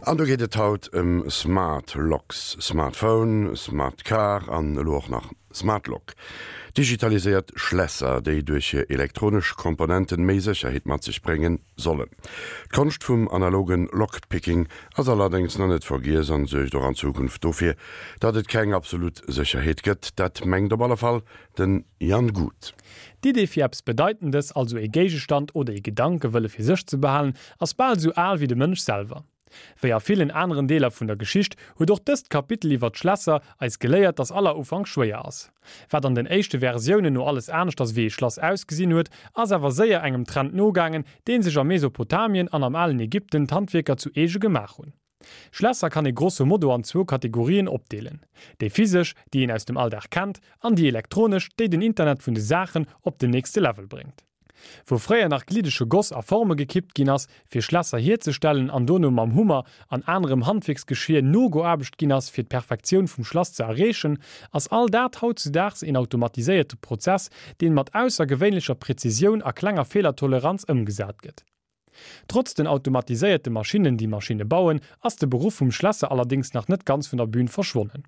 An do geet et haut ëm Smart Locks, Smartphone, Smart Car an elo och nach Smart Lock. Digitaliséiert Schlässer, déi duerch hir elektronesch Komponenten méi Sécherheet mat sech bréngen sollen. D'Konscht vum analogen Lockpicking ass allerdéngs nach net vergiess an suergt och an Zukunft dofir, datt et keng absolut Sécherheet gëtt. Dat mengt op alle Fall den Jan Guth. D'Idee fir eppes Bedeitendes, also ee Géigestand oder ee Gedanke wëlle fir sech ze behalen, ass bal esou al wéi de Mënsch selwer. Wéi a villen aneren Deeler vun der Geschicht huet och dëst Kapitel iwwer d'Schlässer eis geléiert, dass aller Ufank schwéier ass. Wat an den éischte Versiounen no alles aneschters wéi ee Schlass ausgesinn huet, ass awer séier engem Trend nogaangen, dee sech a Mesopotamien an am alen Ägypten d'Handwierker zu eege gemaach hunn. Schlässer kann ee grosso modo an zwou Kategorien opdeelen, déi physesch, déi een aus dem Alldag kennt, an déi elektronesch, déi den Internet vun de Saachen op den nächste Level bréngt. Wou fréier nach gliddege Goss a Forme gekippt ginn ass, fir Schlässer hierzestellen an dono mam Hummer an anerem Handwierksgeschier nogeaarbecht ginn ass, fir d'Perfektioun vum Schlass ze erreechen, ass all dat hautzudaags een automatiséierte Prozess, deen mat aussergewéinlecher Präzisioun a klenger Feelertoleranz ëmgesat gëtt. Trotz den automatiséierte Maschinnen, déi Maschinne bauen, ass de Beruff vum Schlässer allerdéngs nach net ganz vun der Bühn verschwonnen.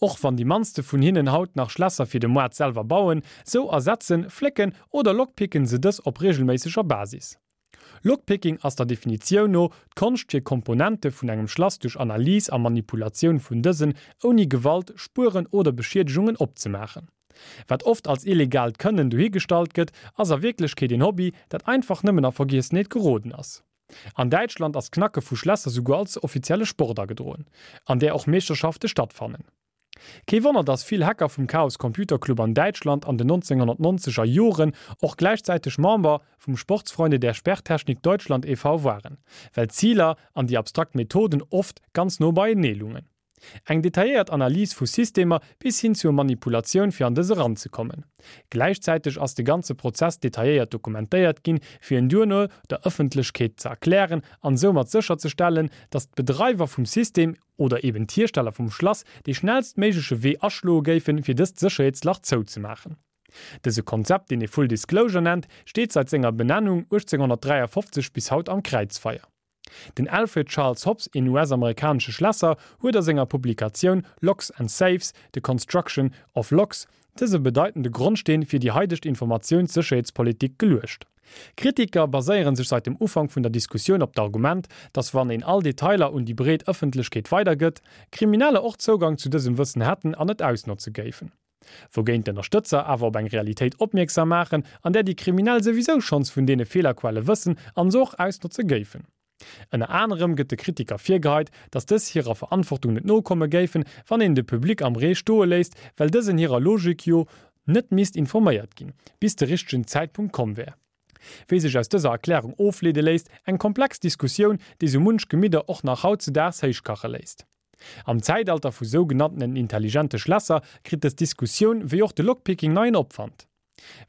Och wann déi mannste vun hinnen haut nach Schlässer fir de Moart selwer bauen, sou ersetzen, flécken oder lockpicken se dës op reegelméisseger Basis. Lockpicking ass der Definitioun no d'Konscht fir Komponente vun engem Schlass duerch Analys a Manipulatioun vun dësen ouni Gewalt, Spueren oder Beschiedegungen opzemaachen. Wat oft als illegaalt Kënnen dohigestallt gëtt, ass a Wierklechkeet een Hobby, dat einfach nëmmen a Vergiessenheet geroden ass. An Däitschland ass d'Knacke vu Schlässer souguer als offizielle Sport agedroen, an där och Meeschterschafte stattfannen. Kee Wonner, dass vill Hacker vum Chaos Computer Club an Däitschland an den 1990 er Joren och gläichzäiteg Member vum Sportsfreunde der Sperrtechnik Deutschland e.V. waren, well d'Ziler an déi abstrakt Methoden oft ganz no beienee lungen. Eng detailléiert Analys vu Systemer bis hin zur Manipulatioun fir an dës eranzekommen. Gläichzäiteg ass de ganze Prozess detailléiert dokumentéiert ginn, fir en duerno der Ëffentlechkeet ze erklären an soumat sécherzestellen, datt d'Bedreiwer vum System oder eben d'Hiersteller vum Schlass dee schnellstméigleche Wee aschloe géifen, fir dëst Sécherheetslach zouzemaachen. Dëse Konzept, deen ee Full Disclosure nennt, steet seit senger Benennung 1853 bis haut am Kräizfeier. Den Alfred Charles Hobbs, een US-amerikanesche Schlässer, huet a senger Publikatioun Locks and Safes, The Construction of Locks dëse bedeitende Grondsteen fir déi haidegt Informatiounssécherheetspolitik geluecht. Kritiker baséiere sech seit dem Ufank vun der Diskussioun op d'Argument, datt wann een all Detailer un déi breet Ëffentlechkeet weidergëtt, Krimineller och Zougang zu dësem Wëssen hätten an et ausnotze géifen. Wougéint d'Ënnerstëtzer awer op eng Realitéit opmierksam maachen, an där déi Kriminell souwisou schonns vun deene Feelerquelle wëssen an se och ausnotze géifen. Ënner anerem gëtt de Kritiker virgeheit, datt dës hirer Verantwortung net nokomme géifen, wann een de Public am Ree stoe léisst, well dësen hirer Logik jo net misst informéiert ginn, bis de richtegen Zäitpunkt komm wär. Wéi sech aus dëser Erklärung ofleede léisst, eng komplex Diskussioun, déi sou munch Gemidder och nach hautzedaags héichkache léisst. Am Zäitalter vu sougenanntenen intelligente Schlässer kritt dës Diskussioun, wéi och de Lockpicking, neien Opwand.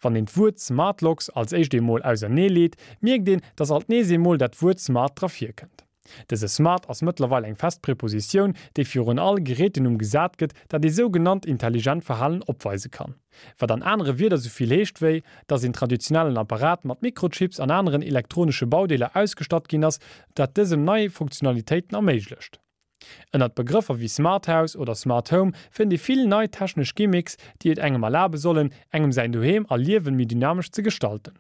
Wann een d'Wuert Smart Locks als éischt eemol ausernee leet, mierkt een, dass alt nees eemol dat Wuert smart dra virkënnt. Dëse smart ass mëttlerweil eng fest Prepositioun, déi virun all Gerätenumm gesat gëtt, dat ee sougenannt intelligent Verhalen opweise kann. Wat an anere Wierder sou vill heescht wéi, dass een traditionellen Apparat mat Mikrochips an aneren elektronesche Baudeeler ausgestatt ginn ass, dat dësem nei Funktionalitéiten erméiglecht. Ënnert Begrëffer wéi Smart House oder Smart Home fënnt ee vill nei technesch Gimmicks, déi et engem erlabe sollen, engem säin Doheem a Liewen méi dynamesch ze gestalten.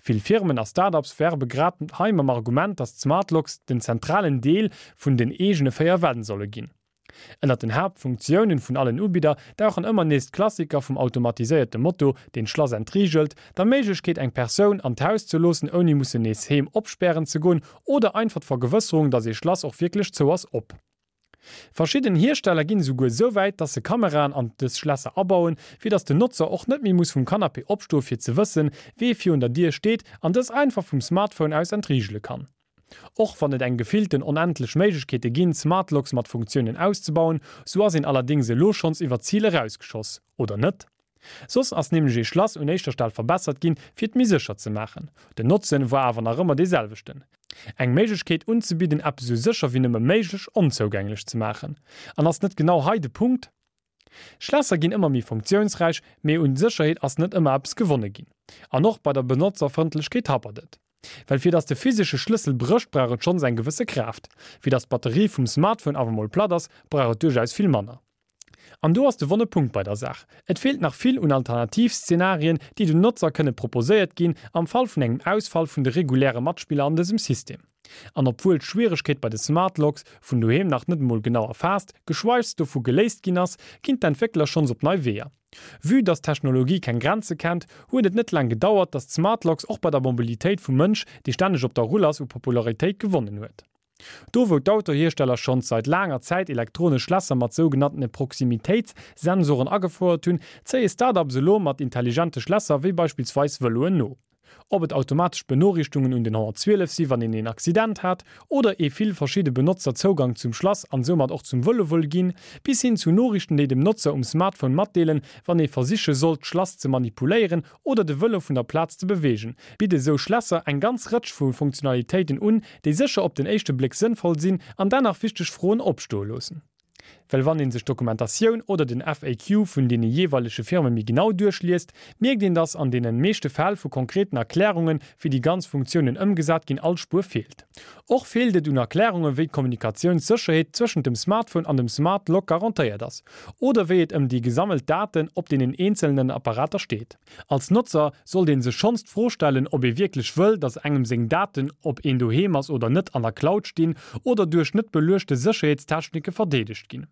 Vill Firmen a Start-ups werbe grad hei mam Argument, dass d'Smart Locks den zentralen Deel vun den eegene 4 Wänn solle ginn. Ënnert den Haaptfunktiounen vun allen Ubidder dauchen ëmmer nees d'Klassiker vum automatiséierte Moto, deen d'Schlass entriegelt, der Méiglechkeet eng Persoun an d'Haus ze loossen ouni mussen nees heem opspären ze goen oder einfach d'Vergewësserung, dass ee Schlass och wierklech zou ass, op. Verschidden Hiersteller ginn esouguer esou wäit, dass se Kameraen an dës Schlässer abauen, fir dass den Notzer och net méi muss vum Canapé opstoe fir ze wëssen, wee virun der Dier steet an dës einfach vum Smartphone aus entriegele kann. Och wann et eng gefillten onendlech Méiglechkeete ginn, Smartlocks mat Funktiounen auszebauen, sou ass een allerdéngs elo schonns iwwer d'Zil erausgeschoss, oder net? Soss ass nämlech ee Schlass un éischter Stell verbessert ginn, fir et méi sécher ze maachen. Den Notzen war awer nach ëmmer dee selwechten, eng Méiglechkeet unzebidden, eppes esou sécher wéi nëmme méiglech onzougänglech ze maachen. An ass net genau hei de Punkt? Schlässer ginn ëmmer méi funktiounsräich, mee un Sécherheet ass net ëmmer eppes gewonne ginn. An och bei der Benotzerfrëndlechkeet happert et. Well fir dass de physesche Schlëssel brécht, brauch et schonns eng gewësse Kraaft. Fir dass d'Batterie vum Smartphone awer mol platt ass, brauch et duerchaus vill manner. An do ass de wonne Punkt bei der Saach, Et feelt nach vill un Alternativszenarien, déi den Notzer kënne proposéiert ginn am Fall vun engem Ausfall vun de reguläre Matspiller an dësem System. An obwuel d'Schwieregkeet bei de Smart Locks vun doheem nach net emol genau erfaasst, geschweigs dovu geléist ginn ass, ginn d'Entwéckler schonns op nei Weeër. Vue dass d'Technologie keng Grenze kennt, huet et net laang gedauert, dass d'Smart Locks och bei der Mobilitéit vum Mënsch, dee stänneg op der Rull ass, u Popularitéit gewonnen huet. Do wou d'Autohiersteller schonns seit laanger Zäit elektronesch Schlässer mat sougenanntene Proximitéitssensoren agefouert hunn, zéie Start-ups elo mat intelligente Schlässer wéi beispillsweis Vëloen no. Ob et automatesch Benoriichtungen un den 112 si wann een een Accident hat, oder ee vill verschidde Benotzer Zougang zum Schlass an soumat och zum Vëlo wëll ginn, bis hin zu Noriichten déi dem Notzer um Smartphone matdeelen, wann ee versiche sollt d'Schlass ze manipuléieren oder de Vëlo vun der Plaz ze beweegen, bidde sou Schlässer eng ganz Rëtsch vu Funktionalitéiten un, déi sécher op den éischte Bléck sënnvoll sinn an dennach wichteg Froen opstoe loossen. Well wann een sech d'Dokumentatioun oder den FAQ vun deene jeeweilege Firme méi genau duerchliest, mierkt een, dass an deene meeschte Fäll vu konkreten Erklärungen, wéi déi ganz Funktiounen ëmgesat ginn, all Spuer feelt. Och feelt et un Erklärungen, wéi d'Kommunikatiounssécherheet zwëschent dem Smartphone an dem Smart Lock garantéiert ass oder wéi et ëm déi gesammelt Daten op deenen eenzelnen Apparater steet. Als Notzer sollt een sech schonns d'Fro stellen, ob ee wierklech wëll, dass engem seng Daten, ob een doheem ass oder net, an der Cloud stinn oder duerch net beluechte Sécherheetstechnike verdeedegt ginn.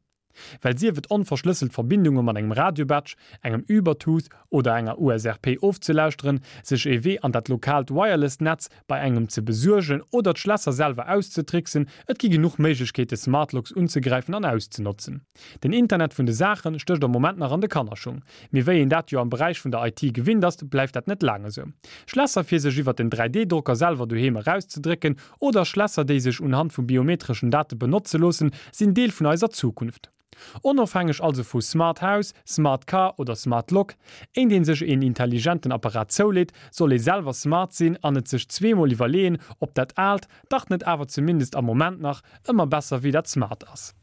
Well sief et onverschlësselt Verbindunge mat engem Radiobadge, engem Ubertooth oder enger USRP ofzelauschteren, sech ee Wee an dat lokaalt Wireless-Netz bei engem ze besuergen oder d'Schlässer selwer auszetricksen, et gi genuch Méiglechkeete Smartlocks unzegräifen an auszenotzen. Den Internet vun de Saache stécht am Moment nach an de Kannerschung. Mee wéi een dat jo am Beräich vun der IT gewinnt ass, bleift dat net laang esou. Schlässer fir sech iwwert den 3D-Drocker selwer doheem erauszedrécken oder Schlässer déi sech unhand vu biometreschen Date benotze loossen, sinn Deel vun eiser Zukunft. Onofhängeg also vu Smart House, Smart Car oder Smart Lock, éint een sech een intelligenten Apparat zouleet, soll ee selwer smart sinn an et sech zweemol iwwerleeën, ob dat Aalt dach net awer zumindest am Moment nach ëmmer besser wéi dat Smart ass.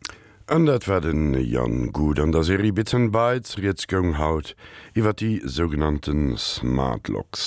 An dat war den Jan Guth an der Serie Bits and Bytes. Rieds goung haut iwwer déi sougenannte Smart Locks.